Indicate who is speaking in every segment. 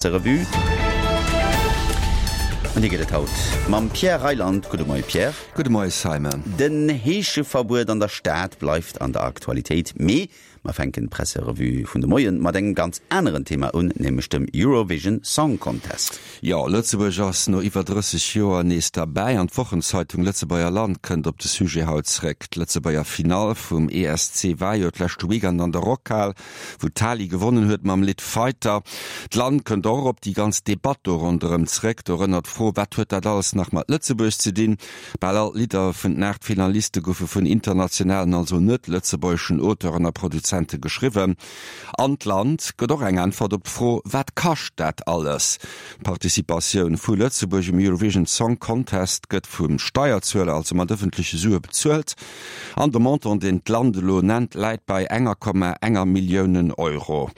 Speaker 1: Revue. An déi gëtt et haut mam Pierre Reyland. Gudde Moie Pierre.
Speaker 2: Gudde Moie Simon.
Speaker 1: Den Heescheverbuet an der Stad bleift an der Aktualitéit, mee mer fänken d'Presserevue vun de Moien mat engem ganz aneren Thema un, nämlech dem Eurovision Song Contest.
Speaker 2: Jo, Lëtzebuerg ass no iwwer 30 Joer nees derbäi an d'Wochenzeitung Lëtzebuerger Land kënnt op de Sujet haut zréck. D'Lëtzebuerger Finall vum ESC war jo d'leschte Weekend an der Rockhal. wou d'Tali gewonnen huet mam Lidd Fighter. D'Land kënnt och op déi ganz Debatt do ronderëm zréck, dorënner d'Fro, Wat huet dat alles nach mat Lëtzebuerg ze dinn? Bal all d'Lidder vun den 8 Finaliste goufe vun internationalen, also net lëtzebuergeschen Auteuren a Produzente geschriwwen. An d'Land gëtt och eng Äntwert op d'Fro, Wat kascht dat alles? D'Participatioun vu Lëtzebuerg um Eurovision Song Contest gëtt vum Steierzueler, also mat ëffentleche Sue bezuelt. An de Montant, deen d'Land elo nennt, läit bei enger Komma enger Milliounen Euro.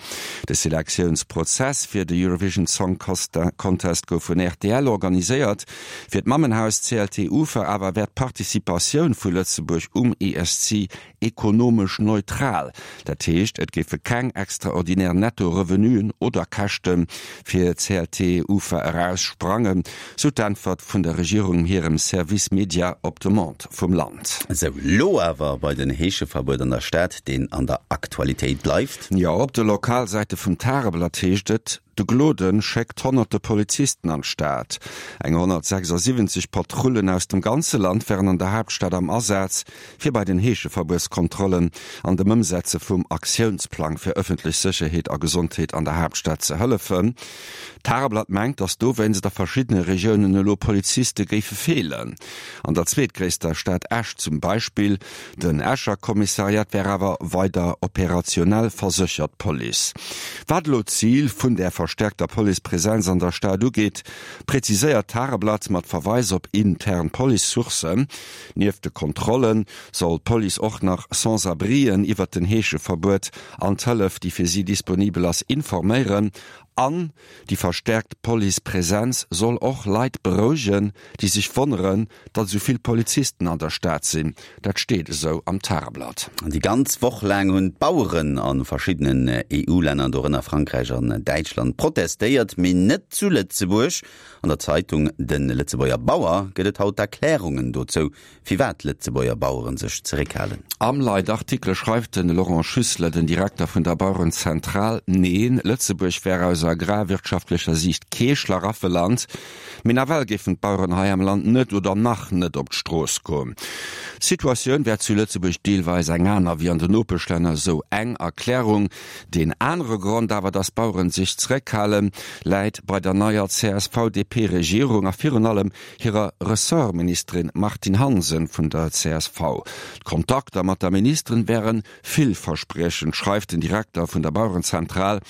Speaker 2: De Selektiounsprozess fir de Eurovision Song Contest gouf vun rtl organiséiert. Fir d'Mammenhaus CLT Ufer awer wär d'Participatioun vu Lëtzebuerg um ESC ekonomesch neutral. Dat heescht, et géife keng extraordinär Netto-Revenuen oder Käschte fir CLT Ufer eraussprangen, sou d'Äntwert vun der Regierung hirem Service Media op Demande vum Land.
Speaker 1: Sou, lo awer bei den Heescheverbuet an der Stad, deen an der Aktualitéit bleift.
Speaker 2: Jo, op de Lokalsäite vum Tageblatt heescht et, De Gloden schéckt honnerte Polizisten an d'Stad. Eng 176 Patrullen aus dem ganze Land wären an der Haaptstad am Asaz, fir bei den Heescheverbuetskontrollen an dem Ëmsetze vum Aktiounsplang fir ëffentlech Sécherheet a Gesondheet an der Haaptstad ze hëllefen. D'Tageblatt mengt, datt dowéinst a verschiddene Regiounen elo Poliziste géife feelen. An der zweetgréisster Stad Esch zum Beispill. Den Escher Kommissariat wär awer weider operationell, verséchert d'Police. Wat elo d'Zil vun där verstäerkter Policepresenz an der Stad ugeet, präziséiert d'Tageblatt mat Verweis op intern Police-Sourcen, Nieft de Kontrolle soll d'Police och nach Sans-abrien iwwert den Heescheverbuet an d'Hëllef, déi fir si disponibel ass, informéieren. An déi verstäerkt Police-Presenz soll och Leit berouegen, déi sech wonneren, datt esou vill Polizisten an der Stad sinn. Dat steet esou am Tageblatt.
Speaker 1: Déi ganz Woch laang hunn d'Baueren a verschiddenen EU-Länner, dorënner Frankräich an Däitschland, protestéiert, mee net zu Lëtzebuerg. An der Zeitung De Lëtzebuerger Bauer gëtt et haut Erklärungen dozou, firwat Lëtzebuerger Baueren sech zeréckhalen.
Speaker 2: Am Leitartikel schreift de Laurent Schüssler, den Direkter vun der Bauerenzentral, Neen, Lëtzebuerg wär aus agrarwirtschaftlecher Siicht kee Schlaraffeland, mee nawell géifen d'Baueren hei am Land net oder nach net op d'Strooss goen. D'Situatioun wär zu Lëtzebuerg deelweis eng aner wéi an den Nopeschlänner, esou eng Erklärung. Deen anere Grond awer, datt d'Baueren sech zeréckhalen, läit bei der neier CSV-DP-Regierung a virun allem hirer Ressortministerin Martine Hansen vun der csv. D'Kontakter mat der Ministerin wäre villverspriechend, schreift den Direkter vun der Bauerenzentral.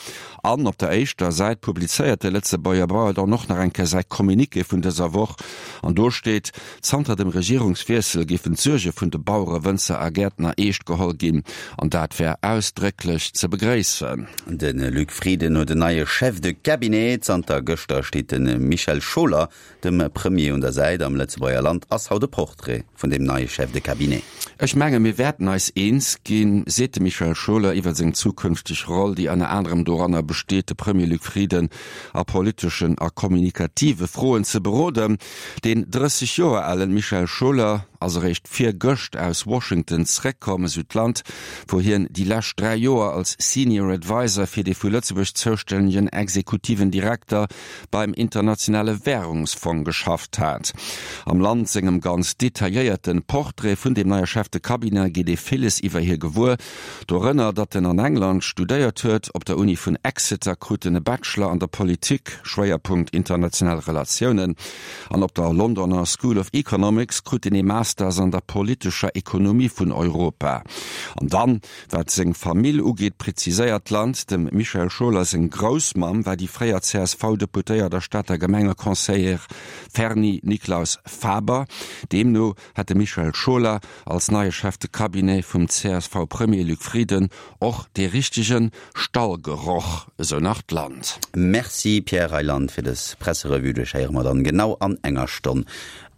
Speaker 2: An op der éischter Säit publizéiert de Lëtzebuerger Bauer dann och nach eng Kéier säi Communiqué vun dëser Woch. An do steet, Zanter dem Regierungswiessel géifen d'Suerge vun de Bauere, Wënzer a Gäertner eescht geholl ginn. An dat wär ausdrécklech ze begréissen.
Speaker 1: De Luc Frieden huet en neie Chef de cabinet. Zanter gëschter steet de Michel Scholer Dem Premier un der Säit am Lëtzebuerger Land ass haut e Portrait vun deem neie Chef de Cabinet.
Speaker 2: Ech menge mir wäerten eis eens ginn, seet de Michel Scholer iwwer seng zukünfteg Roll, déi ënner anerem doranner besteet, de Premier Luc Frieden a politeschen a kommunikative Froen ze beroden. Deen 30 Joer alen Michel Scholer ass eréischt virgëscht aus Washington zréckkomm, esou d'Land, wou hien déi lescht 3 Joer als Senior Adviser fir dee vu Lëtzebuerg zoustännegen exekutiven Direkter beim Internationale Währungsfong geschafft hat. Am Land sengem ganz detailléierten Portrait vun dem neie Chef de Cabinet geet ee villes iwwer hie gewuer, dorënner datt en an England studéiert huet. Op der Uni vun Exeter krut en e Bachelor an der Politik, Schwéierpunkt international Relatiounen, an op der Londoner School of Economics krut en ee Masters an der politescher Ekonomie vun Europa. An dann Wat seng Famill ugeet, präziséiert d'Land, dem Michel Scholer seng Groussmamm war déi fréier CSV-Deputéiert a Stater Gemengeconseillère Ferny Nicklaus-Faber. Deemno hätt de Michel Scholer als neie Chef de Cabinet vum CSV-Premier Luc Frieden och dee richtege Stallgeroch, esou nach d'Land.
Speaker 1: Merci Pierre Reyland fir dës Presserevue. Dech héiere mer dann genau an enger Stonn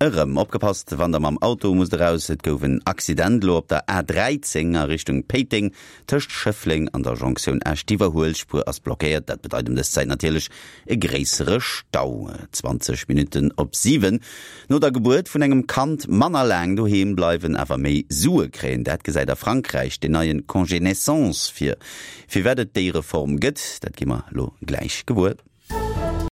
Speaker 1: erëm. Opgepasst wann der mam Auto. Auto musst eraus. Et gouf en Accident elo op der A13 a Richtung Péiteng tëscht Schëffleng an der Jonktioun Esch. D'Iwwerhuelspuer ass blockéiert. Dat bedeit ëm dës Zäit natierlech e gréissere Stau. 20 Minutten op 7. No der Gebuert vun engem Kand manner laang doheem bleiwen, awer méi Sue kréien, dat gesäit a Frankräich den neie Congé naissance vir. Firwat et déi Reform gëtt, dat gi mer elo gläich gewuer.